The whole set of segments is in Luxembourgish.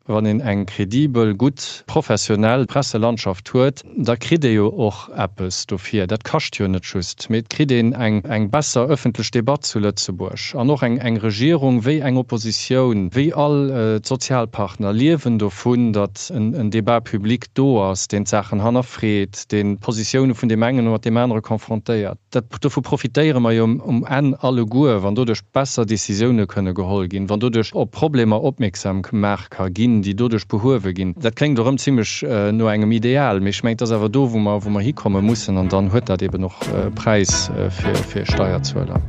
Wann een eng kredibel, gutt, professionell Presselandschaft huet, da kritt ee jo och eppes dofir. Dat kascht jo net just, mee et kritt een eng eng besser ëffentlech Debatt zu Lëtzebuerg. An och eng eng Regierung wéi eng Oppositioun, wéi all d'Sozialpartner liewen dovun, datt en en Débat public do ass, deen d'Saachen hannerfreet, deen d'Positioune vun deem engen mat deem anere confrontéiert. Dat, dovu profitéiere mer jo um Enn alleguer, wann doduerch besser Décisioune kënne geholl ginn, wann doduerch op Problemer opmierksam gemaach ka ginn, déi doduerch behuewe ginn. Dat kléngt erëm zimlech no engem Ideal, mee ech mengen, et ass awer do, wou mer, wou mer hikomme mussen, an dann huet dat eben och e Präis fir, fir Steierzueler.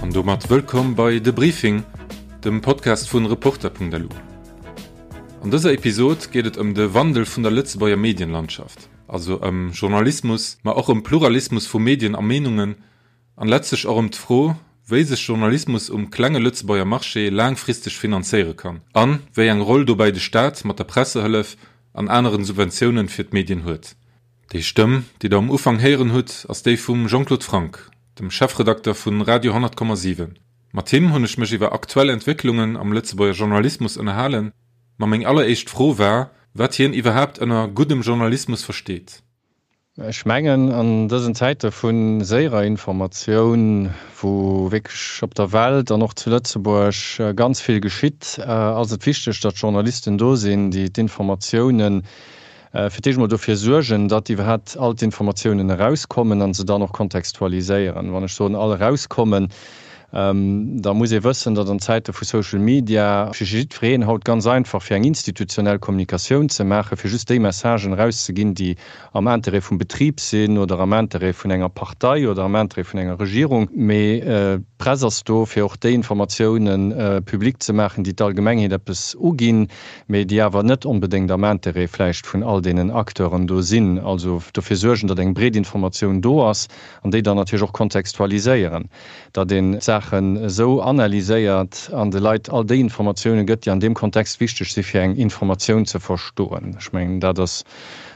An domat wëllkomm bei De Briefing, dem Podcast vun Reporter.lu. An dëser Episod geet et ëm de Wandel vun der Lëtzebuerger Medienlandschaft, also ëm Journalismus, ma och ëm Pluralismus vu Medien a Meenungen an letztlech och ëm d'Fro, wéi sech Journalismus um klenge Lëtzebuerger Marché laangfristeg finanzéiere kann an wéi eng Roll dobäi de Staat mat der Pressehëllef an aneren Subventiounen fir d'Medien huet. Déi Stëmm, déi der um Ufank héieren hutt, ass déi vum Jean-Claude Franck, dem Chefredakter vun Radio 100,7. Mat him hunn ech mech iwwer aktuell Entwécklungen am Lëtzebuerger Journalismus ënnerhalen, ma meng alleréischt Fro war, wat hien iwwerhaapt ënner guddem Journalismus versteet. Ech mengen, an dësen Zäite vu séierer Informatioun, wou wierklech op der Welt an och zu Lëtzebuerg ganz vill geschitt, ass et wichteg, datt Journalisten do sinn, déi d'Informatiounen Fir d'éischt emol dofir suergen, datt iwwerhaapt all d'Informatiounen erauskommen a se dann och kontextualiséieren. Wann ech soen all erauskommen, da muss ee wëssen, datt an Zäite vu Social Media fir jiddwereen haut ganz einfach fir eng institutionell Kommunikatioun ze maachen, fir just déi Messagen erauszeginn, déi am Interêt vum Betrib sinn oder am Interêt vun enger Partei oder am Interêt vun enger Regierung. Mee d'Press ass do, fir och déi Informatiounen public ze maachen, déi d'Allgemengheet eppes uginn. mee déi awer net onbedéngt am Intérêt vläicht vun all deenen Acteuren do sinn, also dofir suergen, datt eng breet Informatioun do ass an déi dann natierlech och kontextualiséieren, datt een d'Saachen esou analyséiert an de Leit all déi Informatiounen gëtt, déi an deem Kontext wichteg si fir eng Informatioun ze verstoen. Ech mengen, dat ass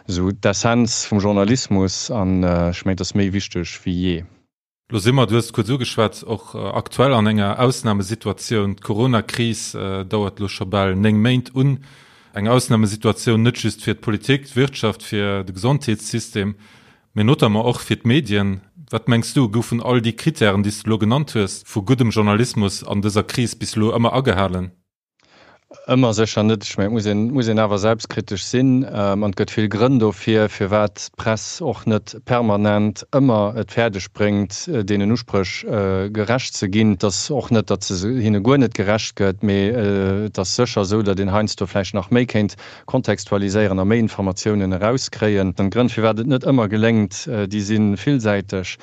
esou d'Essenz vum Journalismus an ech mengen, et ass méi wichteg wéi jee. Lo si mer, du hues et kuerz ugeschwat, och aktuell an enger Ausnamesituatioun. D'Corona-Kris dauert elo scho bal 9 Méint un. Eng Ausnamesituatioun net just fir d'Politik, d'Wirtschaft, fir de Gesondheetssystem, mee notamment och fir d'Medien. Wat mengs du, goufen all déi Krittären, déi s de elo genannt hues, vu guddem Journalismus an dëser Kris bis elo ëmmer agehalen? Ëmmer sécher net. Ech mengen, et muss een, muss een awer selbstkritesch sinn. An et gëtt vill Grënn dofir, firwat d'Press och net permanent ëmmer et fäerdeg bréngt, deenen Uspréch gerecht ze ginn. Et ass och net, datt se hinne guer net gerecht gëtt, mee et ass sécher esou, datt een heiansdo vläicht nach méi kéint kontextualiséieren a méi Informatiounen erauskréien. D'Grënn, firwat et net ëmmer geléngt, déi si villsäiteg.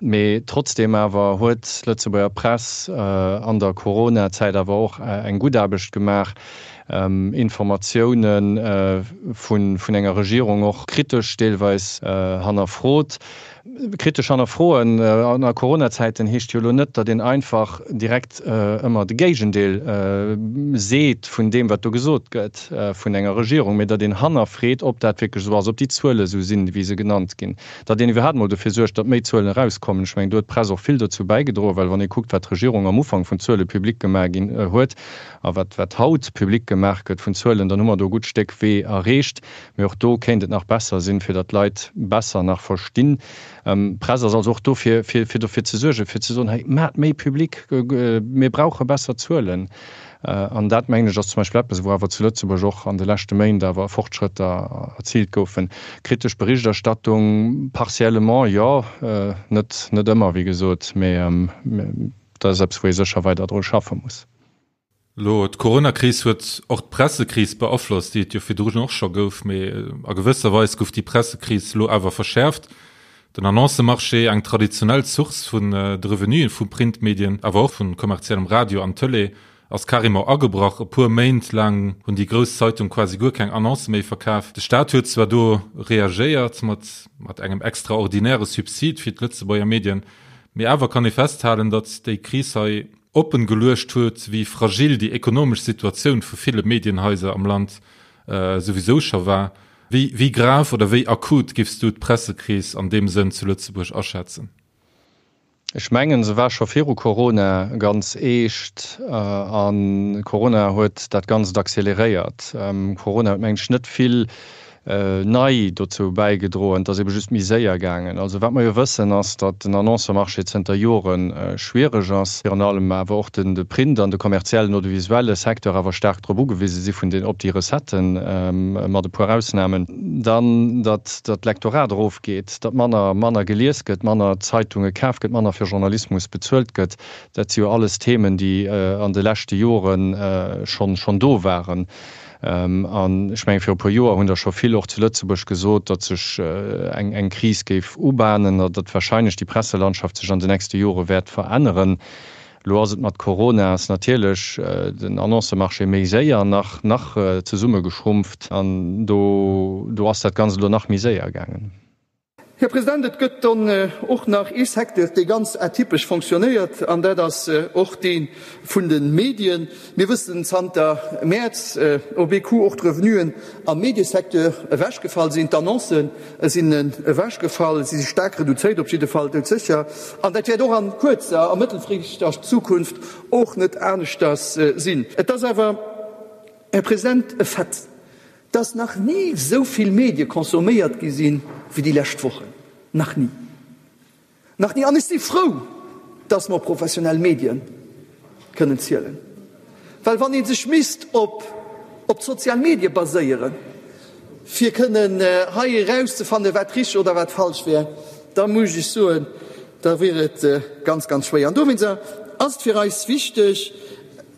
Mee trotzdeem awer huet d'Lëtzebuerger Press an der Corona-Zäit awer och eng gutt Aarbecht gemaach, Informatioune vun enger Regierung och kritesch deelweis hannerfrot. Kritesch hannerfroen an a Corona-Zäiten heescht jo elo net, datt een einfach direkt ëmmer de Géigendeel seet vun deem, wat do gesot gëtt vun enger Regierung, mee datt een hannerfreet, ob dat wierklech esou ass, ob déi Zuele esou sinn, wéi se genannt ginn. Datt een iwwerhaapt mol dofir suergt, datt méi Zuelen erauskommen. Ech mengen, do huet d'Press och vill dozou bäigedroen, well wann ee kuckt, wat d'Regierung am Ufank vun Zuele public gemaach ginn huet a wat wat haut public gemaach gëtt vun Zuelen, dann hu mer do e gutt Stéck Wee erreecht. Mee och do kéint et nach besser sinn, fir datt d'Leit besser nach verstinn. D'Press ass also och do, fir fir dofir ze suergen, fir ze soen, hei, maacht méi public, mir brauche besser Zuelen. An dat, mengen ech, ass zum Beispill eppes, wou awer zu Lëtzebuerg och an de leschte Méint awer Fortschrëtter erziilt goufen. Kritesch Berichterstattung, partiellement, jo, net, net ëmmer, wéi gesot, mee dat ass eppes, wou ee sécher weider dru schaffe muss. Elo, d'Coronakris huet och d'Pressekris beaflosst, déi et jo virdrun och scho gouf, mee a gewësser Weis gouf déi Pressekris elo awer verschäerft. Den Annoncemarché, eng traditionell Source vun de Revenuen vu Printmedien, awer och vu kommerziellem Radio an Tëlee, ass carrément agebrach. E puer Méint laang hunn déi grouss Zeitung quasi guer keng Annoncë méi verkaf. De Staat huet zwar do reagéiert mat mat engem extraordinäre Subsid fir d'Lëtzebuerger Medien, mee awer kann ee festhalen, datt déi Kris hei oppen geluecht huet, wéi fragil déi ekonomesch Situatioun vu ville Medienhaiser am Land souwisou scho war. Wéi, wéi grav oder wéi akut giffs du d'Pressekris an deem Sënn zu Lëtzebuerg aschätzen? Ech mengen, se war scho viru Corona ganz eescht a Corona huet dat Ganzt acceleréiert. Corona huet, mengen ech, net vill nei dozou bäigedroen, et ass ebe just méi séier gaangen. Also wat mer jo wëssen, ass, datt den Annoncëmarché zënter Jore schwiereg ass, virun allem awer och de Print an de kommerziellen audiovisuelle Secteur awer staark drop ugewise si vun den, op déi Recetten, mat e puer Ausnamen. Dann, datt d'Lektorat erofgeet, datt manner, manner gelies gëtt, manner Zeitunge kaf gëtt, manner fir Journalismus bezuelt gëtt. Dat si jo alles Themen, déi an de leschte Jore schonn, schonn do waren. An ech mengen, viru e puer Joer hunn der scho vill och zu Lëtzebuerg gesot, datt sech eng eng Kris géif ubahnen a datt wahrscheinlech déi Presselandschaft sech an de nächste Jore wäert veränneren. Elo ass et mat Corona ass natierlech den Annoncëmarché méi séier nach nach zesummegeschrumpft an do do ass dat Ganzt elo nach méi séier gaangen. Här President, et gëtt dann och nach ee Secteur, dee ganz atypesch fonctionnéiert, an dat ass och dee vun de Medien. Mir wëssen zanter Mäerz op ee Coup och d'Revenuen am Mediesecteur ewechgefall sinn, d'Annoncë sinn ewechgefall, si si staark reduzéiert, op jidde Fall doudsécher. An dat wäert och a kuerzer a mëttelfristeger Zukunft och net aneschters sinn. Et ass awer, Här President, e Fait, Dass nach ni esou vill Medie consomméiert gi sinn, wéi déi lescht Wochen. Nach ni. Nach ni. An ech si frou, dass mer op professionell Medie kënnen zielen. Well wann ee sech misst op op d'sozial Medie baséieren, fir kënnen hei erauszefannen, wat richteg oder wat falsch wär, da muss ech soen, da wier et ganz, ganz schwéier. An dowéinst ass et fir eis wichteg,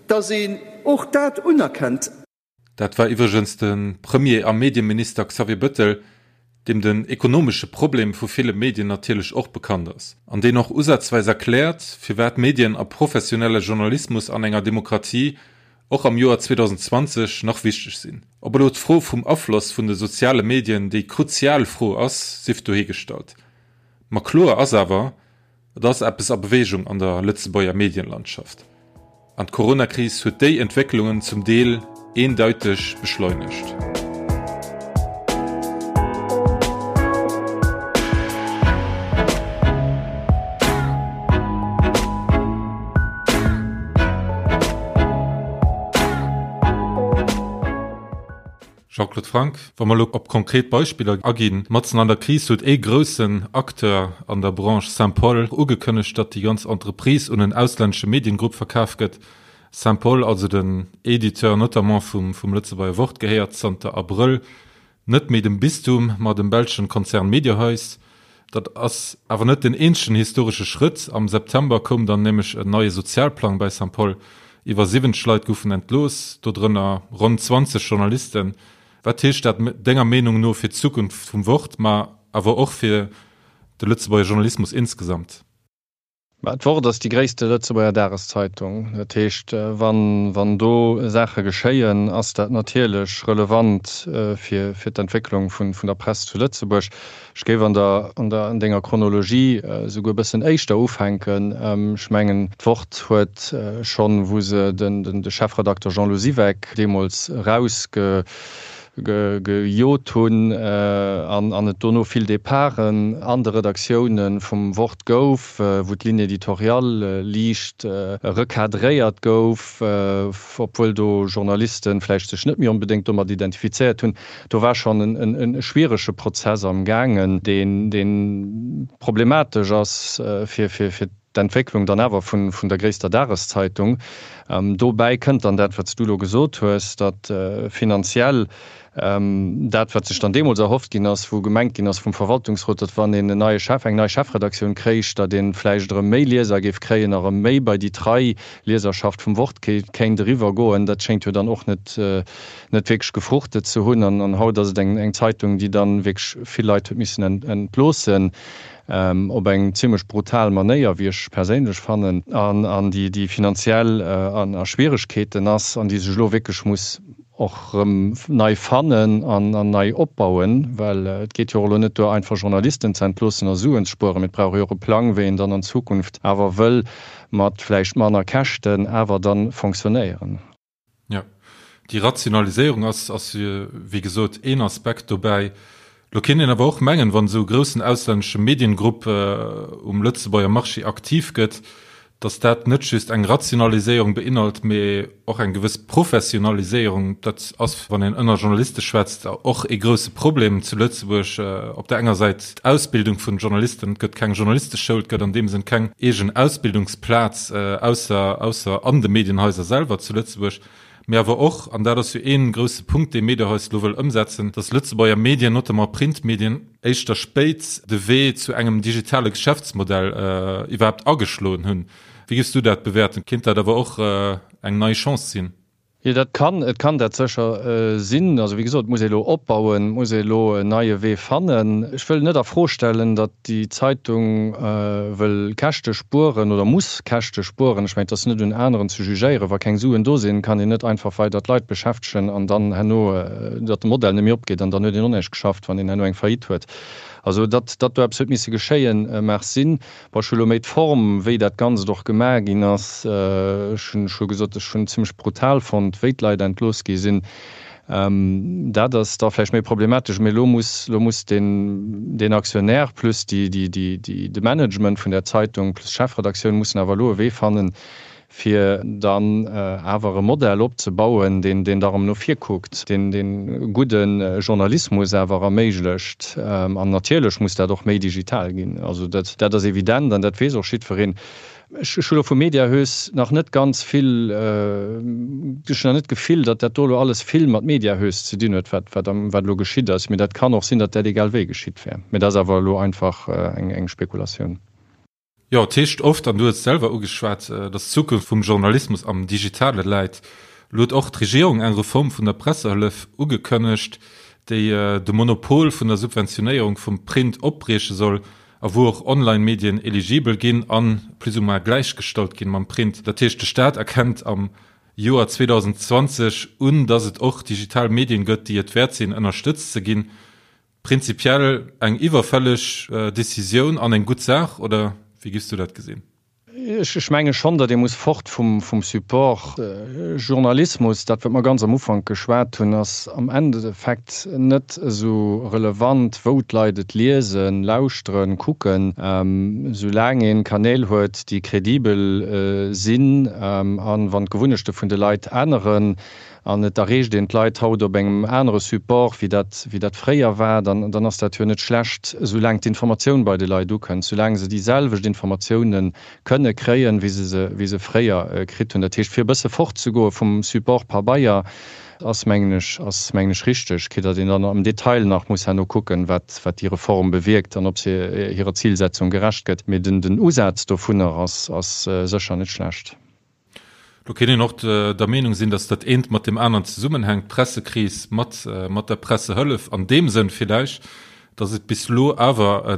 dass een och dat unerkennt. Dat war iwwregens de Premier a Medieminister Xavier Bëttel, deem den ekonomesche Problem vu ville Medien natierlech och bekannt ass, an deen och usazweis erkläert, firwat Medien a professionelle Journalismus an enger Demokratie och am Joer 2020 nach wichteg sinn. Ob elo d'Fro vum Afloss vun de soziale Medien déi kruzial Fro ass, sief dohigestallt. Ma kloer ass awer, Et ass eppes a Beweegung an der Lëtzebuerger Medienlandschaft. An d'Coronakris huet déi Entwécklungen zum Deel eendeiteg beschleunegt. Jean-Claude Franck, Wa mer elo op konkret Beispiller aginn, matzen an der Kris huet ee groussen Acteur an der Branche, Saint-Paul, ugekënnegt, datt déi ganz Entreprise un en auslännesche Mediengrupp verkaf gëtt. Saint-Paul, also den Editeur notamment vum Lëtzebuerger Wort, gehéiert zanter Abrëll net méi dem Bistum, ma dem belschen Konzern Mediahuis. Dat ass awer net den eenzegen historesche Schrëtt. Am September koum dann nämlech en neie Sozialplang bei Saint-Paul. Iwwer 70 Leit goufen entlooss, dodrënner ronn 20 Journalisten. Wat heescht dat denger Meenung no fir d'Zukunft vum Wort, ma awer och fir de Lëtzebuerger Journalismus insgesamt? Mä d'Wort ass déi gréisste Lëtzebuerger Dageszeitung. Dat heescht, wann, wann do Saache geschéien, ass dat natierlech relevant fir, fir d'Entwécklung vun, vun der Press zu Lëtzebuerg. Ech géif an der, an der, an denger Chronologie esouguer e bëssen éischter ufänken. Ech mengen, d'Wort huet schonn, wou se den, den, de Chefredakter Jean-Lou Siweck deemools erausge, gejot hunn an et dono vill Departen an de Redaktioune vum Wort gouf, wou d'Ligne éditoriale liicht recadréiert gouf, obwuel do Journaliste vläicht sech net méi onbedéngt domat identifizéiert hunn. Do war schonn e schwierege Prozess am gaangen, dee problematesch ass fir d'Entwécklung dann awer vun der gréisster Dageszeitung. Dobäi kënnt dann dat, wat s du elo gesot hues, datt finanziell dat, wat sech dann deemools erhofft ginn ass, wou gemengt ginn ass vum Verwaltungsrot, datt wann een en neie Chef, eng nei Chefredaktioun kréich, datt ee vläicht erëm méi Lieser géif kréien a erëm méi bei déi trei Lieserschaft vum Wort kéint eriwwer goen, dat schéngt jo dann och net net wierklech gefruchtet ze hunn. An haut ass et eng Zeitung, déi dann wierklech vill Leit huet missen entloossen. Op eng zimlech brutal Manéier, wéi ech perséinlech fannen, an déi finanziell a Schwieregkeeten ass an déi sech elo wierklech muss och erëm nei fannen an nei opbauen, well et geet jo och elo net duer, einfach Journalisten ze entloossen a Suen ze spueren, mee et brauch jo och e Plang, wéi een dann an Zukunft awer wëll mat vläicht manner Käschten awer dann fonctionnéieren. Jo. Déi Rationaliséierung ass, ass wéi gesot een Aspekt dobäi. Lo kéint een awer och mengen, wann esou e groussen auslännesche Mediengrupp um Lëtzebuerger Marché aktiv gëtt, datt dat net just eng Rationaliséierung beinhalt, mee och eng gewëss Professionaliséierung. Dat ass, wann een ënner Journaliste schwätzt, och ee grousse Problem zu Lëtzebuerg. Op der enger Säit d'Ausbildung vun Journalisten, et gëtt keng Journalisteschoul, et gëtt an deem Sënn keng eegen Ausbildungsplaz, ausser, ausser an de Medienhaiser selwer zu Lëtzebuerg. Mee awer och, an dat ass jo ee grousse Punkt, dee Mediahuis elo wëll ëmsetzen, datt Lëtzebuerger Medien, notamment Printmedien, éischter spéit de Wee zu engem digitale Geschäftsmodell iwwerhaapt ageschloen hunn. Wéi géifs du dat bewäerten? Kéint dat awer och eng nei Chance sinn? Jo, dat kann, et kann dat sécher sinn. Also wéi gesot, et muss ee elo opbauen, et muss ee elo en neie Wee fannen. Ech wëll net a Fro stellen, datt déi Zeitung wëll Käschte spueren oder muss Käschte spueren. Ech mengen, et ass net un aneren ze jugéieren. Wa keng Suen do sinn, kann een net einfach weider d'Leit beschäftegen an dann herno, datt de Modell net méi opgeet an dann huet een och näischt geschafft, wann een herno eng Faillite huet. Also datt datt do eppes huet misse geschéien, mag sinn. Bon, ech hu lo méi d'Form, wéi dat Ganzt och gemaach ginn ass, ech hunn scho gesot, ech hunn zimlech brutal fonnt, wéi d'Leit entlooss gi sinn. Dat ass da vläicht méi problematesch, mee elo muss, elo muss deen, deen Aktionär plus déi, déi, déi, déi, de Management vun där Zeitung plus d'Chefredaktioun mussen awer elo e Wee fannen, fir dann awer e Modell opzebauen, deen, deen da erëm no vir kuckt, deen, deen gudde Journalismus awer erméiglecht. An natierlech muss dat och méi digital ginn. Also dat, dat ass evident an dat weess och jiddwereen. Ech hu lo vum Mediahuis nach net ganz vill, ech hunn nach net d'Gefill, datt dat do elo alles vill mat Mediahuis ze dinn huet, wat wat am wat elo geschitt ass. Mee dat kann och sinn, datt dat egal wéi geschitt wär. Mee dat ass awer elo einfach eng eng Spekulatioun. Jo, et heescht oft, an du hues et selwer ugeschwat, datt d'Zukunft vum Journalismus am Digitale läit. Elo huet och d'Regierung eng Reform vun der Pressehëllef ugekënnegt, déi de Monopol vun der Subventionéierung vum Print opbrieche soll. A wou och Online-Medien eligibel ginn a plus ou moins gläichgestallt ginn mam Print. Dat heescht, de Staat erkennt am Joer 2020 un, dass et och digital Medien gëtt, déi et wäert sinn, ënnerstëtzt ze ginn. Prinzipiell eng iwwerfälleg Decisioun an eng gutt Saach, oder wéi giffs du dat gesinn? Ech menge schonn, datt ee muss fort vum Support. Journalismus, dat wat mer ganz am Ufank geschwat hunn, ass am Endeffekt net esou relevant, wou d'Leit et liesen, lauschteren, kucken, soulaang ee Kanäl huet, déi kredibel sinn a wann d'Gewunnechte vun de Leit änneren, An et erreecht een d'Leit haut op engem anere Support, wéi dat, wéi dat fréier war, dann, dann ass dat jo net schlecht, soulaang d'Informatioun bei de Leit ukënnt, soulaang se déi selwecht Informatioune kënne kréien, wéi se se, wéi se fréier kritt hunn. Dat heescht, fir e bësse fortzegoe vum Support Pabeier, ass, mengen ech, ass, mengen ech, richteg, quitte datt een dann am Detail nach muss herno kucken, wat, wat déi Reform bewierkt an ob se hirer Zilsetzung gerecht gëtt. Mee den, den Usaz dovunner ass, ass sécher net schlecht. Do kéint een och der Meenung sinn, datt dat eent mat deem aneren zesummenhänkt, d'Pressekris mat mat der Pressehëllef an deem Sënn villäicht, datt et bis elo awer e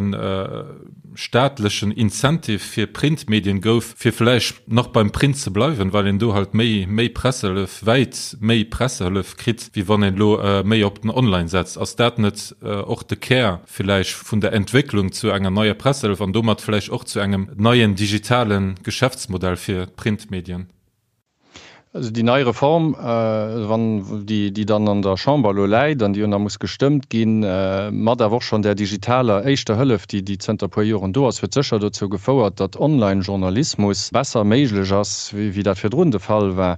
staatlechen Incentive fir Printmedien gouf, fir vläicht nach beim Print ze bleiwen, well een do halt méi méi Pressehëllef, wäit méi Pressehëllef kritt, wéi wann een elo méi op den Online setzt. Ass dat net och de Kär villäicht vun der Entwécklung zu enger neier Pressehëllef an domat vläicht och zu engem neien digitale Geschäftsmodell fir d'Printmedien? Also déi nei Reform, wann déi, déi dann an der Chamber elo läit an déi jo nach muss gestëmmt ginn, mat awer och schonn där digitaler éischter Hëllef, déi, déi zënter e puer Joren do ass, huet sécher dozou gefouert, datt Online-Journalismus besser méiglech ass, wéi dat virdrun de Fall war.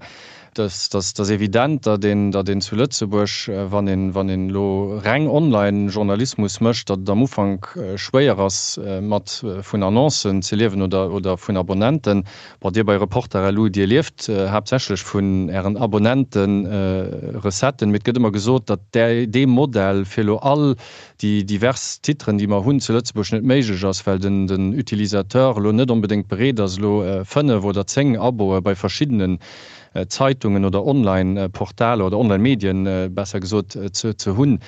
Et ass evident, datt een, datt een zu Lëtzebuerg, wann een, wann een elo reng Online-Journalismus mécht, datt et am Ufank schwéier ass, mat vun Annoncen ze liewen oder, oder vun Abonnenten. Bon, Dir bei Reporter.lu, Dir lieft haaptsächlech vun Ären Abonnenten-Recetten, mee et gëtt ëmmer gesot, datt dee Modell, fir elo all déi divers Titren, déi mer hunn zu Lëtzebuerg, net méiglech ass, well den den Utilisateur elo net onbedéngt bereet ass, elo 5 oder 10 Aboe bei verschiddenen Zeitungen oder Online-Portaler oder Online-Medien, besser gesot, ze ze hunn.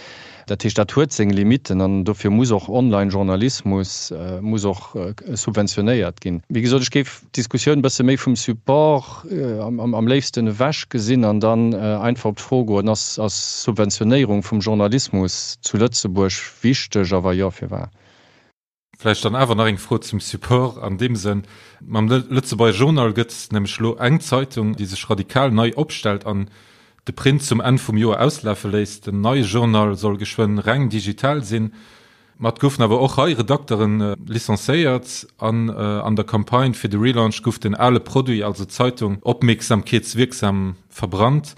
Dat heescht, dat huet seng Limitten an dofir muss och Online-Journalismus muss och subventionéiert ginn. Wéi gesot, ech géif d'Diskussioun e bësse méi vum Support am léifsten ewech gesinn an dann einfach op d'Fro goen, Ass Subventionéierung vum Journalismus zu Lëtzebuerg wichteg a wa jo, firwat? Vläicht dann awer nach eng Fro zum Support an deem Sënn, Mam Lëtzebuerger Journal gëtt nämlech elo eng Zeitung, déi sech radikal nei opstellt an. de Print zum Enn vum Joer auslafe léisst. Den neie Journal soll geschwënn reng digital sinn. Ma et goufen awer och hei Redakteren licencéiert an an der Campagne fir de Relaunch gouf den ale Produit, also d'Zeitung, opmierksamkeetswierksam verbrannt.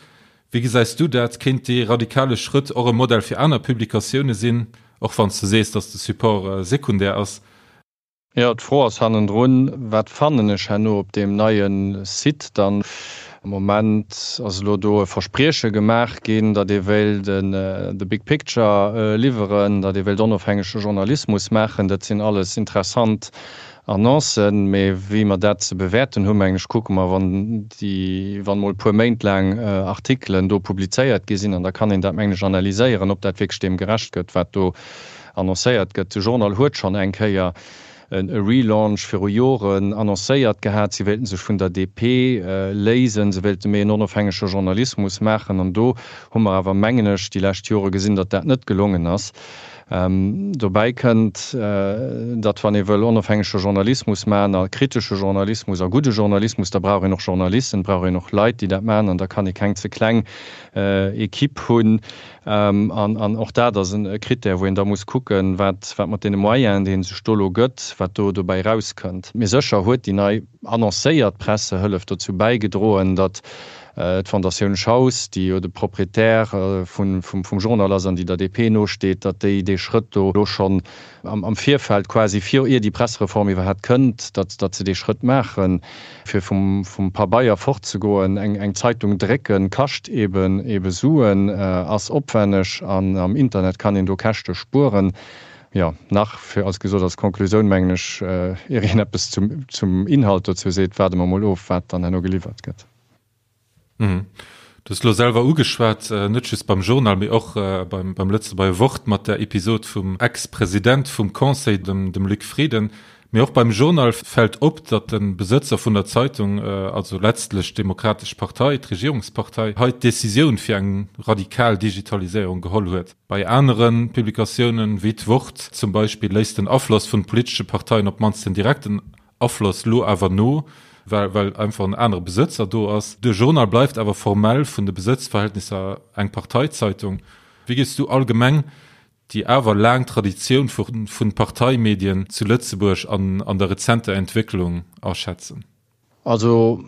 Wéi gesäis du dat? Kéint dee radikale Schrëtt och e Modell fir aner Publikatioune sinn, och wann s de sees, datt de Support sekundär ass? Jo, d'Fro ass hannendrun, Wat fannen ech herno op deem neie Site dann? Am Moment ass elo do e Versprieche gemaach ginn, datt ee wéilt de Big Picture liwweren, datt ee wéilt onofhängege Journalismus maachen. Dat sinn alles interessant Annoncen, mee wéi mer dat ze bewäerten hunn, mengen ech, kucke mer, wann déi, wann emol e puer Méint laang Artikelen do publizéiert gi sinn, an da kann een dat, mengen ech, analyséieren, ob dat wierklech deem gerecht gëtt, wat do Annoncéiert gëtt. De Journal huet schonn eng Kéier e Relaunch viru Joren annoncéiert gehat. Si wéilten sech vun der DP léisen, se wéilte méi en onofhängege Journalismus maachen. An do hu mer awer, mengen ech, déi lescht Jore gesinn, datt dat net gelongen ass. Dobäi kënnt, datt wann ee wëll onofhängege Journalismus maachen a kritesche Journalismus a gudde Journalismus, da brauch een och Journalisten, brauch een och Leit, déi dat maachen. An da kann ee keng ze kleng Equipe hunn. An och dat ass e Krittär, wou een da muss kucken, wat mat deene Moyenen, déi ee sech do elo gëtt, wat do dobäi erauskënnt. Mee sécher huet déi nei annoncéiert Pressehëllef dozou bäigedroen, datt d'Fondatioun Schaus, déi jo de Proprietär vum Journal ass an déi der DP nosteet, datt déi dee Schrëtt do elo schonn am Virfeld quasi, vir ier déi Pressereform iwwerhaapt kënnt, datt datt se dee Schrëtt maachen, fir vum vum Pabeier fortzegoen. Eng eng Zeitung drécken kascht eben ebe Suen, ass opwenneg an am Internet kann een do Käschte spueren. Jo, nach fir als gesot als Konklusioun mengen ech, ier een eppes zum zum Inhalt dozou seet, waarde mer mol of, wat dann herno geliwwert gëtt. Du hues elo selwer ugeschwat, net just beim Journal, mee och beim beim Lëtzebuerger Wort mat der Episod vum Ex-President vum Conseil, dem dem Luc Frieden. Mee och beim Journal fält op, datt de Besëtzer vun der Zeitung, also letztlech d'Demokratesch Partei, d'Regierungspartei, hei d'Decisioun fir eng radikal Digitaliséierung geholl huet. Bei anere Publikatiounen, wéi d'Wort zum Beispill, léisst den Afloss vun politesche Parteien op d'mannst den direkten Afloss lo awer no, well well einfach en anere Besëtzer do ass. De Journal bleift awer formell vun de Besëtzverhältnisser eng Parteizeitung. Wéi géifs du allgemeng déi awer laang Traditioun vu vun Parteimedien zu Lëtzebuerg an an der rezenter Entwécklung aschätzen? Also,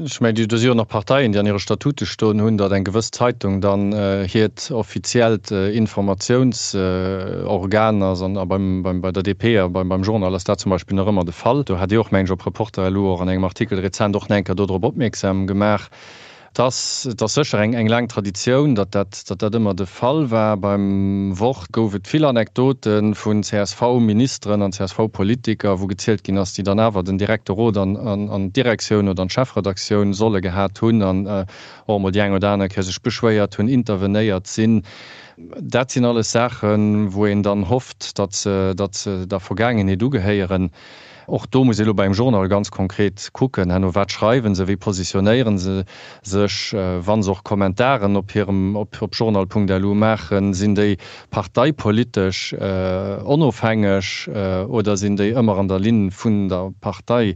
ech mengen, do si jo nach Parteien, déi an hire Statute stoen hunn, datt eng gewëss Zeitung dann hiert offiziellt Informatiounsorgan ass. An beim, beim, bei der DP a beim, beim Journal ass dat zum Beispill nach ëmmer de Fall. Do hat Dir och, mengen ech, op Reporter.lu och an engem Artikel rezent och nach eng Kéier dodrop opmierksam gemaach. Et ass, et ass sécher eng, eng laang Traditioun, datt dat, datt dat ëmmer de Fall war. Beim Wort gouf et vill Anekdote vun CSV-Ministeren an CSV-Politiker, wou gezielt ginn ass, déi dann awer den direkte Rot an, an, an d'Direktioun oder an d'Chefredaktioun solle gehat hunn an och emol déi eng oder aner Kéier sech beschwéiert hunn, intervenéiert sinn. Dat sinn alles Saachen, wou een dann hofft, datt se, datt se der Vergaangenheet ugehéieren. Och do muss ee lo beim Journal ganz konkret kucken, herno, wat schreiwen se, wéi positionéiere se sech, wa se och Kommentaren op hirem, op journal.lu maachen, sinn déi parteipolitesch onofhängeg oder sinn déi ëmmer an der Linn vun der Partei?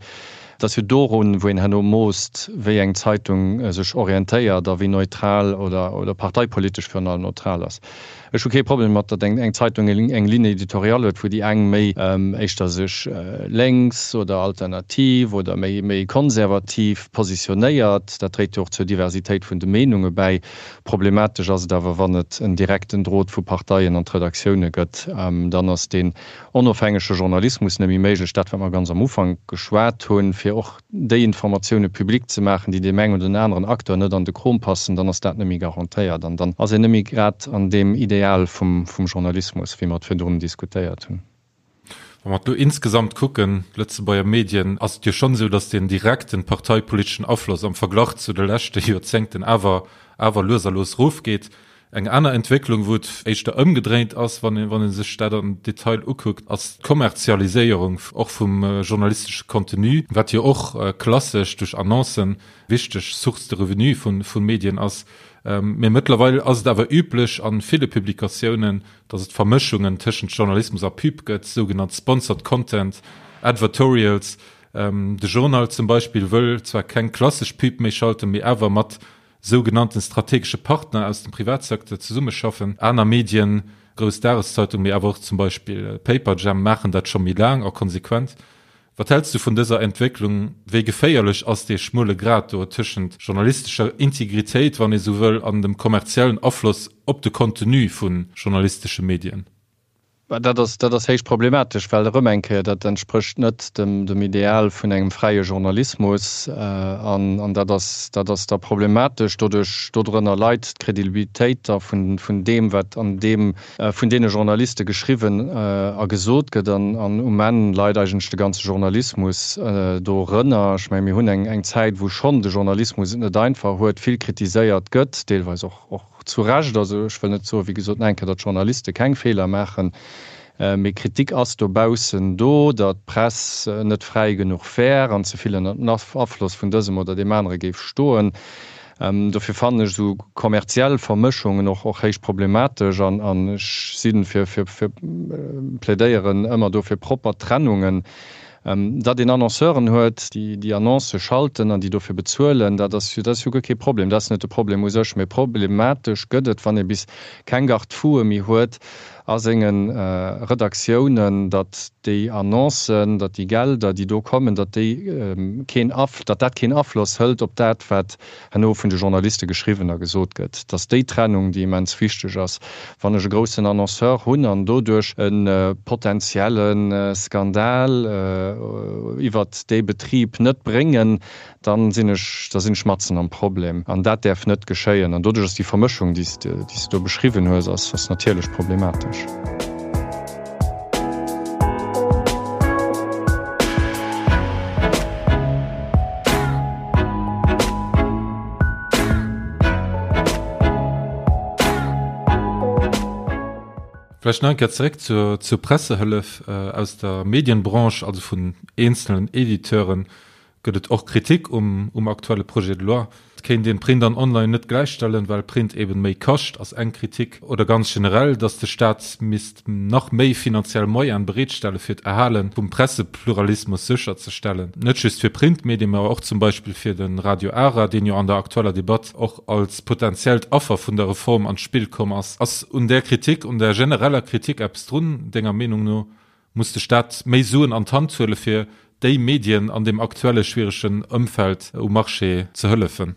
Et ass jo dorun, wou een herno moosst, wéi eng Zeitung sech orientéiert a wéi neutral oder parteipolitesch virun allem neutral ass. Ech hu kee Problem mat, datt eng Zeitung eng Ligne éditoriale huet, wou déi eng méi éischter sech lénks oder alternativ oder méi méi konservativ positionéiert. Dat dréit jo och zur Diversitéit vun de Meenunge bäi. Problematesch ass et awer, wann et en direkten Drot vu Parteien an d'Redaktioune gëtt. Dann ass deen onofhängege Journalismus net méi méiglech. Dat, wat mer ganz am Ufank geschwat hunn, fir och déi Informatioune public ze maachen, déi deem engen oder den aneren Acteur net an de Krom passen, dann ass dat net méi garantéiert an dann ass een net méi grad an deem Ideal vum Journalismus, wéi mer et virdrun diskutéiert hunn. Wa mer et elo insgesamt kucken, d'Lëtzebuerger Medien, ass et jo schonn esou, datt deen direkten parteipoliteschen Afloss am Verglach zu de leschte Joerzéngten awer awer lues a lues erofgeet. Eng aner Entwécklung, wou et éischter ëmgedréint ass, wann ee wann ee sech dat am Detail ukuckt, ass d'Kommerzialiséierung och vum journalistesche Contenu, wat jo och klassesch duerch Annoncen wichteg Source de revenu vu vu Medien ass. Mee mëttlerweil ass et awer üblech a ville Publikatiounen, datt et Vermëschungen tëschent Journalismus a Pub gëtt, sougenannt sponsored content, Advertorials. De Journal zum Beispill wëll zwar keng klassesch Pub méi schalten, mee awer mat. sougenannten strategesche Partner aus dem Privatsecteur zesummeschaffen. Aner Medien, grouss Dageszeitung, mee awer och zum Beispill Paperjam maachen dat scho méi laang a konsequent. Wat häls du vun dëser Entwécklung? Wéi geféierlech ass dee schmuele Grad do tëschent journalistescher Integritéit, wann ee sou wëll, an dem kommerziellen Afloss op de Contenu vu journalistesche Medien? Dat ass, dat ass héich problematesch, well erëm eng Kéier, dat entsprécht net dem, dem Ideal vun engem fräie Journalismus. An, an dat ass, dat ass da problematesch. Doduerch, dodrënner leit d'Credibilitéit da vun, vun deem, wat an deem, vun deene Journaliste geschriwwen a gesot gëtt. An, an um Enn leit eigentlech de ganze Journalismus dorënner. Ech menge mir hunn eng, eng Zäit, wou schonn de Journalismus et net einfach huet, vill kritiséiert gëtt, deelweis och, och, Zu Recht, also ech wëll net soen, wéi gesot, nach eng Kéier, datt Journaliste keng Feeler maachen, mee Kritik ass dobaussen do, datt d'Press net fräi genuch wär an ze vill ënner dem Afloss vun dësem oder deem anere géif stoen. Dofir fannen ech esou kommerziell Vermëschungen och och héich problematesch an ech si fir, fir, plädéieren ëmmer do fir propper Trennungen. Datt een Annonceuren huet, déi déi Annoncë schalten an déi dofir bezuelen, dat ass jo, dat ass jo guer kee Problem. Dat ass net de Problem u sech. Mee problematesch gëtt et, wann ee bis keng Garde-foue méi huet a senge Redaktiounen, datt déi Annoncen, datt déi Gelder, déi do kommen, datt déi keen Af, datt dat keen Afloss hëlt op dat, wat herno vun de Journaliste geschriwwen a gesot gëtt, dass déi Trennung, déi immens wichteg ass, wann ech e groussen Annonceur hunn an doduerch e potenzielle Skandal iwwert dee Betrib net bréngen, da sinn ech, da sinn ech matzen am Problem. An dat däerf net geschéien. An doduerch ass déi Vermëschung, déi s de do beschriwwen hues, ass natierlech problematesch. Vläicht nach eng Kéier zeréck zur, zur Pressehëllef. Aus der Medienbranche, also vun eenzelnen Editeuren, gëtt et och Kritik um, um aktuelle Projet de loi. Et kéint een Print an Online net gläichstellen, well Print eben méi kascht, ass eng Kritik. Oder ganz generell, datt de Staat misst nach méi finanziell Moyene bereetstelle fir d'Erhale vum Pressepluralismus sécherzestellen. Net just fir Printmedien, mä och zum Beispill fir de Radio Ara, deen jo an der aktueller Debatt och als potentiellt Affer vun der Reform an d'Spill komm ass. Ass un där Kritik, un där genereller Kritik eppes drun, denger Meenung no? Muss de Staat méi Suen an d'Hand huele fir déi Medien an deem aktuelle schwieregen Ëmfeld um Marché ze hëllefen?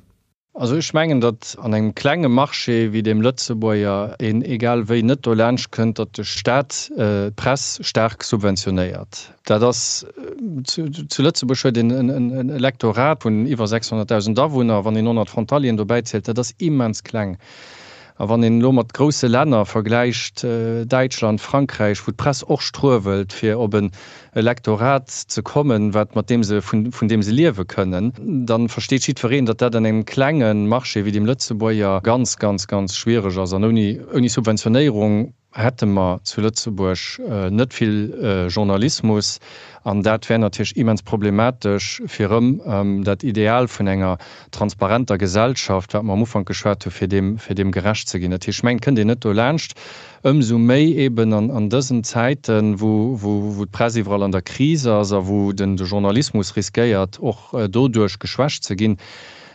Also ech mengen, datt an engem klenge Marché wéi deem Lëtzebuerger een egal wéi net dolaanscht kënnt, datt de Staat d'Press staark subventionéiert. Dat ass, zu Lëtzebuerg huet een en Elektorat vun iwwer 600.000 Awunner, wann een 100 Frontalieren dobäi zielt, dat ass immens kleng. A wann een elo mat grousse Länner vergläicht, Däitschland, Frankräich, wou d'Press och struewelt, fir op en Elektorat ze kommen, wat, mat deem se, vun, vun deem se liewe kënnen, da versteet jiddwereen, datt dat an engem klenge Marché wéi deem Lëtzebuerger ganz, ganz, ganz schwiereg ass. An ouni, ouni Subventionéierung hätte mer zu Lëtzebuerg net vill Journalismus. An dat wär natierlech immens problematesch, fir erëm dat Ideal vun enger transparenter Gesellschaft, wat mer am Ufank geschwat hu fir deem, fir deem gerecht ze ginn. Dat heescht, ech mengen, et kënnt een net dolaanscht, ëmsou méi eeben an dësen Zäiten, wou, wou d'Press iwwerall an der Kris ass a wou den de Journalismus riskéiert, och doduerch geschwächt ze ginn,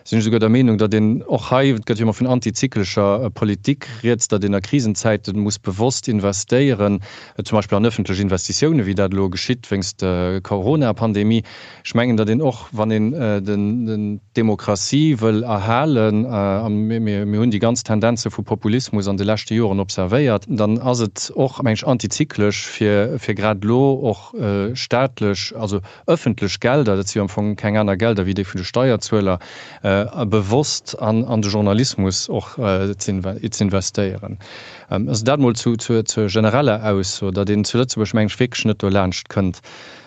sinn ech esouguer der Meenung, datt een och hei, et gëtt jo ëmmer vun antizyklescher Politik rieds, datt een a Krisenzäite muss bewosst investéieren, zum Beispill an öffentlech Investitiounen, wéi dat elo geschitt wéinst der Corona-Pandemie. Ech mengen, datt een och, wann een d'Demokratie wëll erhalen, a mir hunn déi ganz Tendenze vu Populismus an de leschte Joren observéiert, dann ass et och, meng ech, antizyklesch, fir grad elo och staatlech, also ëffentlech Gelder, dat si jo am Fong keng aner Gelder wéi déi vun de Steierzueler, bewosst an de Journalismus och z'investéieren. Also dat mol zur genereller Ausso, datt een zu Lëtzebuerg, meng ech, wierklech net dolaanscht kënnt.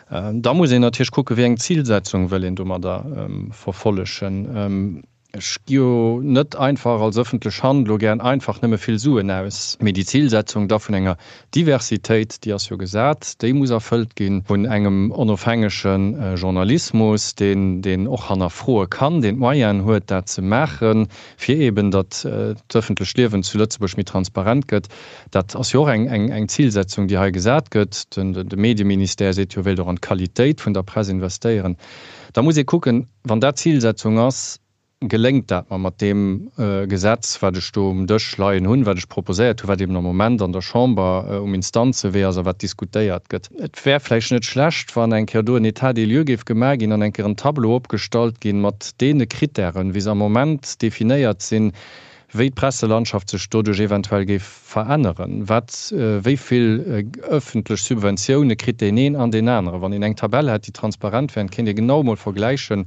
Da muss een natierlech kucken, wéi eng Zilsetzung wëll een domadder verfollegen. Ech gi jo net einfach als ëffentlech Hand elo gären einfach nëmme vill Suen aus, mee déi Zilsetzung da vun enger Diversitéit, déi ass jo gesat, déi muss erfëllt ginn, vun engem onofhängege Journalismus, deen, deen och hannerfroe kann, deen d'Moyenen huet, dat ze maachen, fir eeben, datt d'ëffentlecht Liewen zu Lëtzebuerg méi transparent gëtt. Dat ass jo och eng, eng, eng Zilsetzung, déi hei gesat gëtt. Den, de Medieministère seet jo, e wéilt och an d'Qualitéit vun der Press investéieren. Da muss ee kucken, Wann dat d'Zilsetzung ass, Geléngt dat mer mat deem Gesetz, wat ech do um Dësch leien hunn, wat ech proposéiert hunn, wat eben am Moment an der Chamber um Instanzewee ass a wat diskutéiert gëtt? Et wär vläicht net schlecht, wann eng Kéier do en État des lieux géif gemaach ginn an eng Kéier en Tableau opgestallt ginn mat deene Kritären, wéi se am Moment definéiert sinn, wéi d'Presselandschaft sech doduerch eventuell géif veränneren, wat, wéi vill ëffentlech Subventioune kritt deen een an deen aneren. Wann een eng Tabell hätt, déi transparent wär, kéint ee genau emol vergläichen,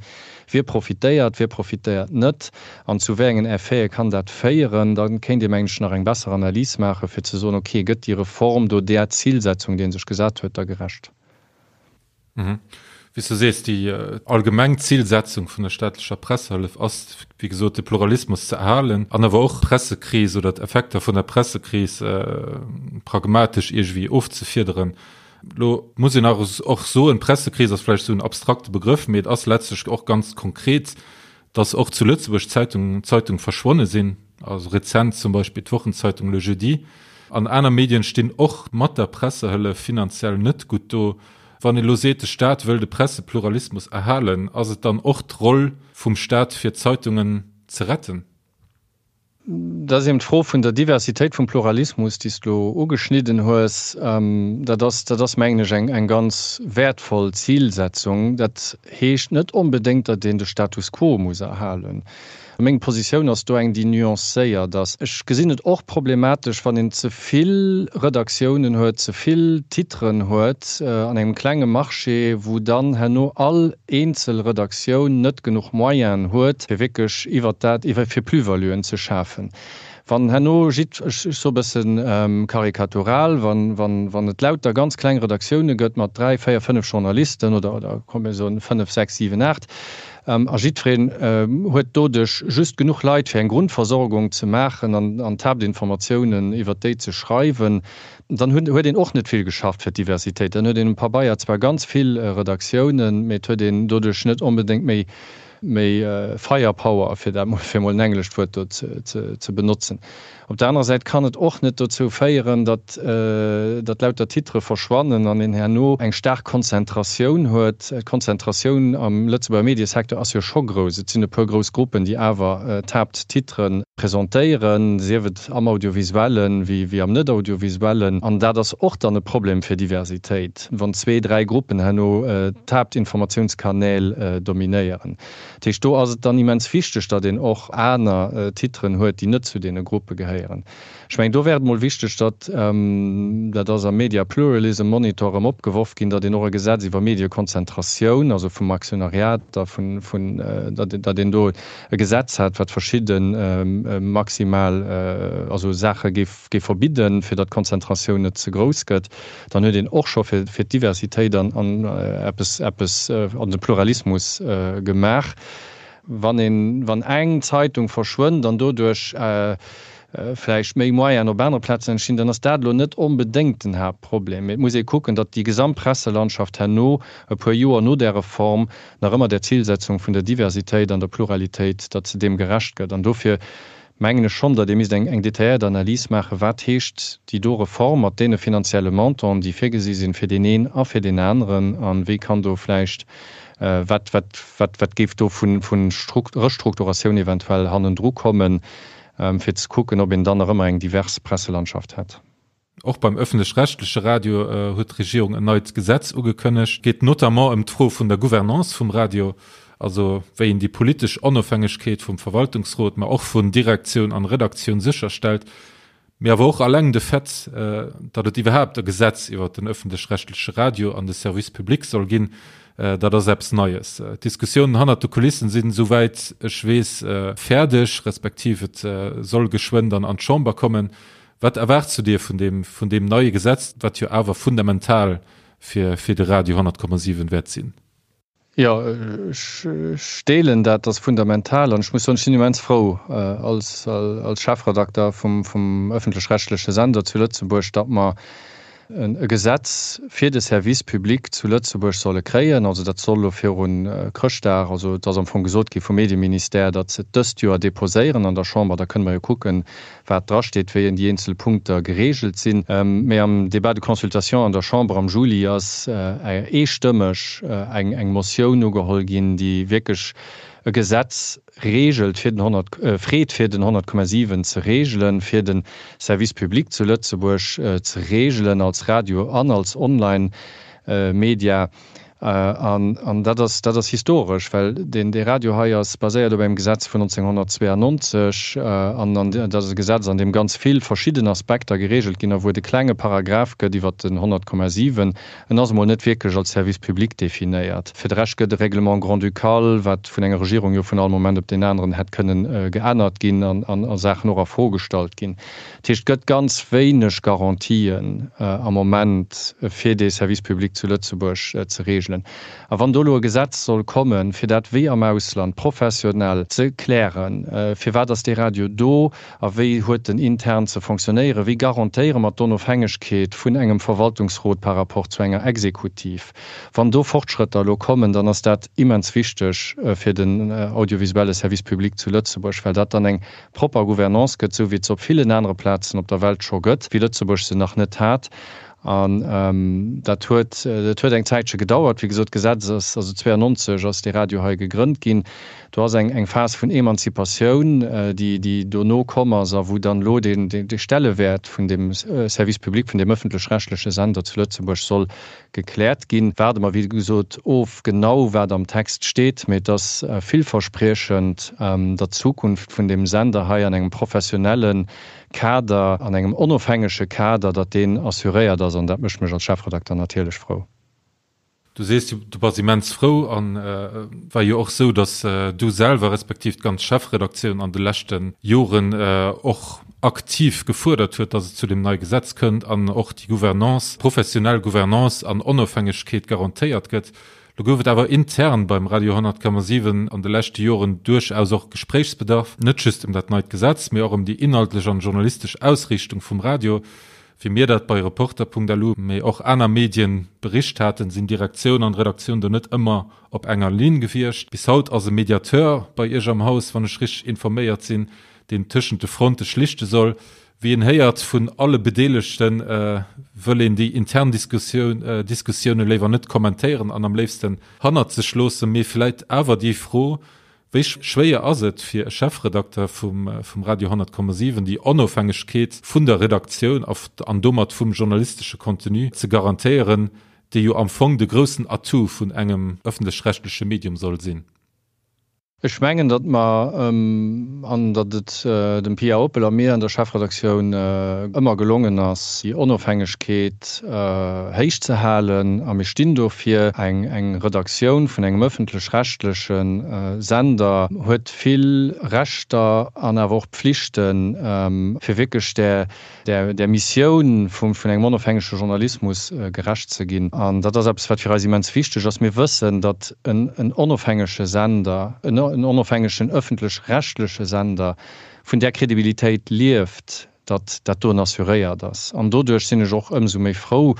wie profitéiert, wie profitéiert net an zu wéi engen Effete kann dat féieren. Da kéint ee, mengen ech, nach eng besser Analys maachen, fir ze soen, okay, gëtt déi Reform do där Zilsetzung, déi ee sech gesat huet, da gerecht? Wéi s du sees, déi allgemeng Zilsetzung vun der staatlecher Pressehëllef ass, wéi gesot, de Pluralismus ze erhalen an awer och d'Pressekris oder d'Effekter vun der Pressekris pragmatesch iergendwéi ofzefiederen. Elo muss een awer och soen, d'Pressekris ass vläicht esou en abstrakte Begrëff, mee et ass letztlech och ganz konkret, dass och zu Lëtzebuerg Zeitung, Zeitung verschwonne sinn, also rezent zum Beispill d'Wochenzeitung Le Jeudi. An aner Medien stinn och mat der Pressehëllef finanziell net gutt do. Wann ee lo seet, de Staat wëll de Pressepluralismus erhalen, ass et dann och d'Roll vum Staat fir d'Zeitungen ze retten? Dat ass eben d'Fro vun der Diversitéit vum Pluralismus, déi s de elo ugeschnidden hues. Dat ass, dat ass, mengen ech, eng, eng ganz wäertvoll Zilsetzung. Dat heescht net onbedéngt, datt een de Status quo muss erhalen. Meng Positioun ass do eng, déi nuancéiert ass. Ech gesinn et och problematesch, wann een ze vill Redaktiounen huet, ze vill Titren huet an engem klenge Marché, wou dann herno all eenzel Redaktioun net genuch Moyenen huet, fir wierklech iwwert dat, iwwer, fir Plus-valuen ze schafen. Wann herno jidd, ech soe bësse karikatural, wann, wann, wann et lauter ganz kleng Redaktioune gëtt mat dräi, véier, fënnef Journalisten oder, oder komm mir soen fënnef, sechs, siwen, aacht, a jiddwereen huet doduerch just genuch Leit, fir eng Grundversorgung ze maachen an, an d'Haaptinformatiounen iwwert déi ze schreiwen, Dann huet een och net vill geschafft fir d'Diversitéit. Dann huet een um Pabeier zwar ganz vill Redaktiounen, mee et huet een doduerch net onbedéngt méi méi Firepower, fir dat mol, fir mol en englescht Wuert do ze benotzen. Op der anerer Säit kann et och net dozou féieren, datt datt lauter Titere verschwannen an een herno eng staark Konzentratioun huet. D'Konzentratioun am Lëtzebuerger Mediesecteur ass jo scho grouss. Et sinn e puer grouss Gruppen, déi awer d'Haapttitere presentéieren, sief et am Audiovisuellen wéi am Net-Audiovisuellen. An dat ass och dann e Problem fir Diversitéit, wann zwee, dräi Gruppen herno d'Haaptinformatiounskanäl dominéieren. Dat heescht, do ass et dann immens wichteg, datt een och aner Titeren huet, déi net zu deene Gruppe gehéieren. Ech mengen, do wär et mol wichteg, datt, dat ass am Media Pluralism Monitor erëm opgeworf ginn, datt een och e Gesetz iwwer Mediekonzentratioun, also vum Aktionariat a vun, datt, datt een do e Gesetz hat, wat verschidde maximal, also Saache géif, géif verbidden, fir datt d'Konzentratioun net ze grouss gëtt. Dann huet een och scho fir, fir d'Diversitéit an, an eppes, eppes an de Pluralismus gemaach. Wann een, wann eng Zeitung verschwënnt an doduerch vläicht méi Moyenen op anere Plazen entstinn, dann ass dat elo net onbedéngt den Haaptproblem. Mee et muss ee kucken, datt déi gesamt Presselandschaft herno, e puer Joer no där Reform, nach ëmmer där Zilsetzung vun der Diversitéit an der Pluralitéit, datt se deem gerecht gëtt. An dofir mengen ech schonn, datt ee misst eng detailléiert Analys maachen, wat heescht déi do Reform mat deene finanzielle Montanten, déi virgesi sinn, fir deen een a fir deen aneren, a wéi kann do vläicht, wat, wat, wat, wat géif do vu Restrukturatioun eventuell hannendru kommen, fir ze kucken, ob een dann nach ëmmer eng divers Presselandschaft hätt. Och beim ëffentlech-rechtleche Radio huet d'Regierung en neit Gesetz ugekënnegt. Et geet notamment ëm d'Fro vun der Gouvernance vum Radio, also wéi een déi politesch Onofhängegkeet vum Verwaltungsrot, ma och vun Direktioun an Redaktioun sécherstellt. Mee awer och alleng de Fait, datt et iwwerhaapt e Gesetz iwwer den ëffentlech-rechtleche Radio an de Service public soll ginn, dat ass eppes Neies. D'Diskussiounen hannert de Kulissen sinn, esouwäit ech weess, fäerdeg, respektiv et soll geschwënn dann an d'Chamber kommen. Wat erwaarts du dir vun deem, vun deem neie Gesetz, wat jo awer fundamental fir, fir de Radio 100,7 wäert sinn? Jo, ech deelen dat, dat ass fundamental. An ech muss soen, ech sinn immens frou als Chefredakter vum ëffentlech-rechtleche Sender zu Lëtzebuerg, datt mer e Gesetz fir de Service public zu Lëtzebuerg solle kréien. Also dat soll elo viru Chrëschtdag, also et ass am Fong gesot gi vum Medieministère, datt se et dëst Joer deposéieren an der Chamber. Da kënne mer jo kucken, wat drasteet, wéi déi eenzel Punkter geregelt sinn. Mee am Débat de consultation an der Chamber am Juli ass eestëmmeg eng Motioun ugeholl ginn, déi wierklech. e Gesetz regelt fir den 100, freet fir den 100,7 ze regelen, fir de Service public zu Lëtzebuerg ze regelen als Radio an als Online-Media. An dat ass, dat ass historesch, well deen, dee Radio hei ass baséiert op engem Gesetz vun 1992 an dat ass e Gesetz, an deem ganz vill verschidden Aspekter geregelt ginn a wou et e klenge Paragraph gëtt iwwert den 100,7. En ass emol net wierklech als Service public definéiert. Fir de Rescht gëtt e Règlement grand-ducal, wat vun enger Regierung jo vun all Moment op deen aneren hätt kënnen geännert ginn an a Saachen och a Fro gestallt ginn. Dat heescht, et gëtt ganz wéineg Garantien am Moment, fir dee Service public zu Lëtzebuerg ze regelen. A wann do elo e Gesetz soll kommen, fir dat wéi am Ausland professionell ze klären, firwat ass dee Radio do a wéi huet en intern ze fonctionnéieren, wéi garantéiere mer d'Onofhängegkeet vun engem Verwaltungsrot par rapport zu enger Exekutiv, wann do Fortschrëtter elo kommen, dann ass dat immens wichteg fir den audiovisuelle Service public zu Lëtzebuerg, well dat dann eng propper Gouvernance gëtt, esou wéi et se op villen anere Plazen op der Welt scho gëtt, wéi Lëtzebuerg se nach net hat. An dat huet, dat huet eng Zäitche gedauert. Wéi gesot, d'Gesetz ass, also 92 ass dee Radio hei gegrënnt ginn. Do ass eng, eng Phas vun Emanzipatioun, déi, déi dono komm ass a wou dann elo deen, dee Stellewäert vun deem Service public, vun deem ëffentlech-rechtleche Sender zu Lëtzebuerg soll Gekläert ginn. Waarde mer wéi gesot of genau wat am Text steet, mee et ass villverspriechend, datt d'Zukunft vun deem Sender hei an engem professionelle Kader, an engem onofhängege Kader, datt deen assuréiert ass an dat mécht mech als Chefredakter natierlech frou. Du sees, du bass immens frou an et war jo och esou, datt du selwer respektiv d'ganz Chefredaktioun an de leschte Joren och aktiv gefuerdert huet, datt et zu deem neie Gesetz kënnt an och déi Gouvernance, professionell Gouvernance an Onofhängegkeet garantéiert gëtt. Lo gouf et awer intern beim Radio 10,7 an de leschte Joren duerchaus och Gespréichsbedarf, net just ëm dat neit Gesetz, mee och ëm déi inhaltlech an journalistesch Ausriichtung vum Radio. Wéi mir dat bei Reporter.lu, mee och aner Medien bericht haten, sinn Direktioun an Redaktioun do net ëmmer op enger Linn gewiescht. Bis haut ass e Mediateur bei Iech am Haus, wann ech richteg informéiert sinn, deen tëschent de Fronte schlichte soll. Wéi een héiert vun alle Bedeelegte wëll een déi intern Diskussioune léiwer net kommentéieren an am léifsten hannert sech loossen. Mee vläit awer déi Fro, Wéi schwéier ass et fir e Chefredakter vum Radio 10,7 déi Onofhängegkeet vun der Redaktioun an domat vum journalistesche Contenu ze garantéieren, déi jo am Fong de groussen Atout vun engem ëffentlech-rechtleche Medium soll sinn? Ech mengen, datt mer, an datt et dem Pia Oppel a mir an der Chefredaktioun ëmmer gelongen ass, déi Onofhängegkeet héich ze halen, a mir stinn dofir. Eng Redaktioun vun engem ëffentlech-rechtleche Sender huet vill Rechter an awer och Pflichten, fir wierklech där där Missioun vun engem onofhängege Journalismus gerecht ze ginn. An dat ass eppes, wat fir eis immens wichteg ass. Mir wëssen, datt en onofhängege Sender, en onofhängegen ëffentlech-rechtleche Sender vun där Kredibilitéit lieft, datt dat doen assuréiert ass. An doduerch sinn ech och ëmsou méi frou,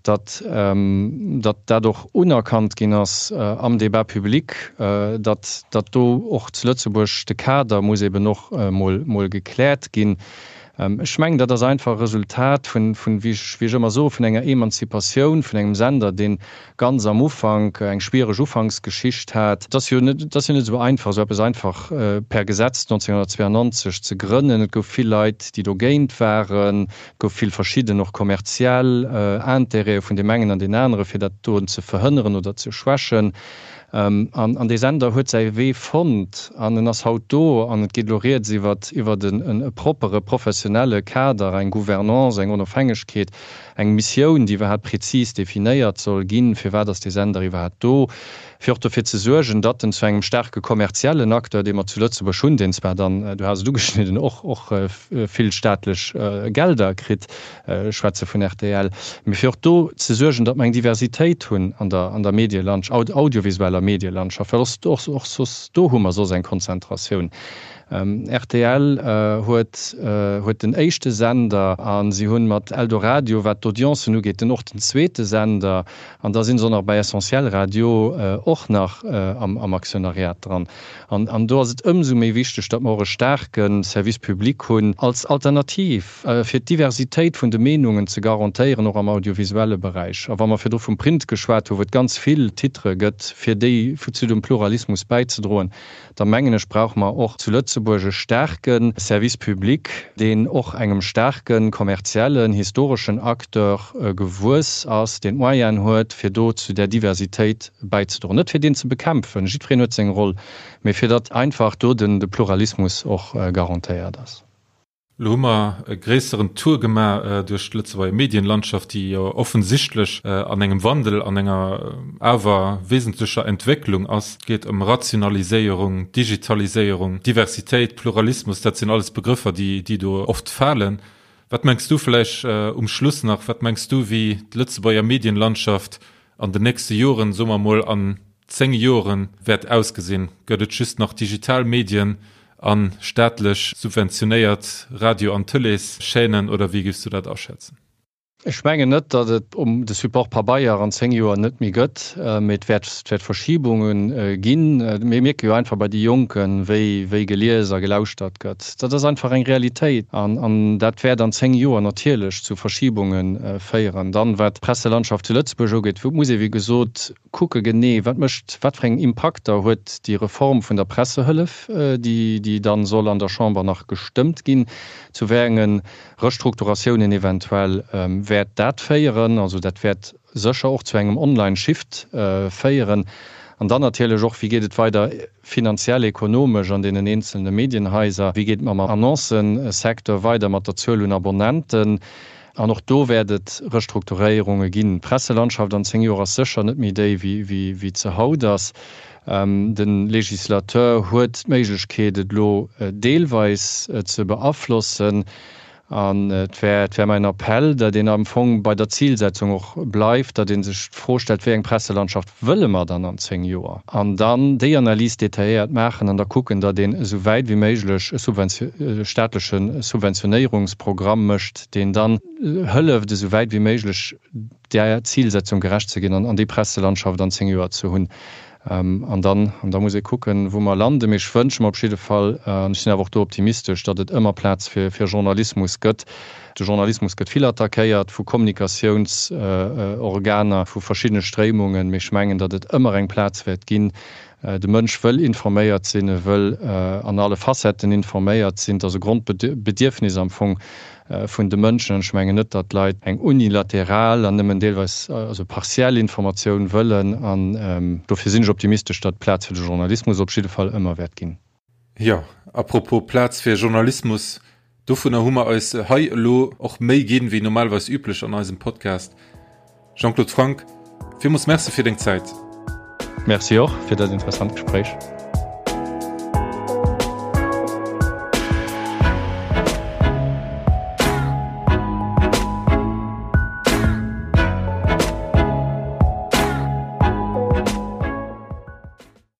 datt datt dat och unerkannt ginn ass am Débat public, datt datt do och zu Lëtzebuerg de Kader muss eben och emol gekläert ginn. Ech mengen, dat ass einfach e Resultat vun, wéi ech ëmmer soen, vun enger Emanzipatioun vun engem Sender, dee ganz am Ufank eng schwiereg Ufanksgeschicht hat. Et ass jo net, et ass jo net esou einfach, esou eppes einfach per Gesetz 1992 ze grënnen. Et gouf vill Leit, déi dogéint waren. Et gouf vill verschidden, och kommerziell Intérêtë vun deem engen an deem anere, fir dat doen ze verhënneren oder ze schwächen. An dee Sender huet säi Wee fonnt an en ass haut do an et geet elo rieds iwwer iwwer e proppere professionelle Kader, eng Gouvernance, eng Onofhängegkeet, eng Missioun, déi iwwerhaapt prezis definéiert soll ginn, firwat ass dee Sender iwwerhaapt do, fir och dofir ze suergen, datt en zu engem staarke kommerziellen Acteur, dee mer zu Lëtzebuerg hunn, deen zwar dann, du has et ugeschnidden, och och vill staatlech Gelder kritt, Ech schwätze vun rtl, mee fir och do ze suergen, datt mer eng Diversitéit hunn an der, an der Medielandsch-, audiovisueller Medielandschaft, well och, och soss do hu mer soss eng Konzentratioun. Rtl huet huet den éischte Sender a si hunn mat Eldoradio, wat d'Audiencen ugeet, den och den zweete Sender. An da sinn se och nach bei Essentiel Radio och nach am Aktionariat dran. An do ass et ëmsou méi wichteg, datt mer och e staarke Service public hunn als Alternativ, fir d'Diversitéit vun de Meenungen ze garantéieren, och am audiovisuelle Beräich. A wa mer virdru vum Print geschwat hu wou et ganz vill Titere gëtt, fir déi zu dem Pluralismus bäizedroen, da mengen ech, brauche mer och zu Lëtzebuerg e staarke Service public, deen och engem staarke kommerziellen, historeschen Acteur gewuess ass, deen d'Moyenen huet, fir do zu där Diversitéit bäizedroen. Net fir deen ze bekämpfen, jiddwereen huet seng Roll, mee fir datt einfach do de Pluralismus och garantéiert ass. Lo hu mer e gréisseren Tour gemaach duerch d'Lëtzebuerger Medienlandschaft, déi jo offensichtlech an engem Wandel, an enger awer wesentlecher Entwécklung ass. Et geet ëm Rationaliséierung, Digitaliséierung, Diversitéit, Pluralismus, dat sinn alles Begrëffer, déi do oft falen. Wat mengs du vläicht um Schluss nach, wat mengs du, wéi d'Lëtzebuerger Medienlandschaft an den nächste Joren, soe mer mol an 10 Joren, wäert ausgesinn? Gëtt et just nach digital Medien a staatlech subventionéiert Radio an Tëleeschaînen oder wéi géifs du dat aschätzen? Ech mengen net, datt et de Support Pabeier an 10 Joer net méi gëtt, mee et wäert et wäert Verschibunge ginn. Mir mierke jo einfach bei de Jonken, wéi wéi gelies a gelauschtert gëtt. Dat ass einfach eng Realitéit an an dat wäert an 10 Joer natierlech zu Verschibunge féieren. Dann, wat d'Presselandschaft zu Lëtzebuerg ugeet, muss ee wéi gesot kucke genee, wat mécht, wat fir eng Impakter huet déi Reform vun der Pressehëllef, déi déi dann soll an der Chamber nach gestëmmt ginn, zu wéi enge Restrukturatiounen eventuell wäert dat féieren. Also dat wäert sécher och zu engem Online-Shift féieren. An dann natierlech och, wéi geet et weider finanziell, ekonomesch an deenen eenzelne Medienhaiser, wéi geet et mam Annoncësecteur weider, mat der Zuel un Abonnenten. An och do wäert et Restrukturéierunge ginn. D'Presselandschaft an 10 Joer ass sécher net méi déi, wéi se haut ass. De Législateur huet d'Méiglechkeet, et elo deelweis ze beaflossen. An et wär, et wär mäin Appell, datt een am Fong bei der Zilsetzung och bleift, datt ee sech d'Fro stellt, Wéi eng Presselandschaft wëlle mer dann an 10 Joer? An dann déi Analys detailléiert maachen an da kucken, datt een esou wäit wéi méiglech e staatleche Subventionéierungsprogramm mécht, deen dann hëlleft, esou wäit wéi méiglech där Zilsetzung gerecht ze ginn an déi Presselandschaft an 10 Joer ze hunn. An dann, an da muss ee kucken, wou mer landen. Mee ech wënsche mer op jidde Fall, an ech sinn awer och do optimistesch, datt et ëmmer Plaz fir Journalismus gëtt. De Journalismus gëtt vill attackéiert vu Kommunikatiounsorganer, vu verschiddene Stréimungen, mee ech mengen, datt et ëmmer eng Plaz wäert ginn. De Mënsch wëll informéiert sinn, e wëll an alle Facetten informéiert sinn. Et ass e Grondbedierfnis am Fong vun de Mënschen. An ech mengen net, datt d'Leit eng unilateral an nëmmen deelweis, also partiell Informatioun wëllen. An dofir sinn ech optimistesch, datt Plaz fir de Journalismus op jidde Fall ëmmer wäert ginn. Jo, à propos Plaz fir Journalismus, dovunner hu mer eis hei elo och méi ginn, wéi normalerweis üblech an eisem Podcast. Jean-Claude Franck, villmools Merci fir deng Zäit. Merci och fir dat interessant Gespréich.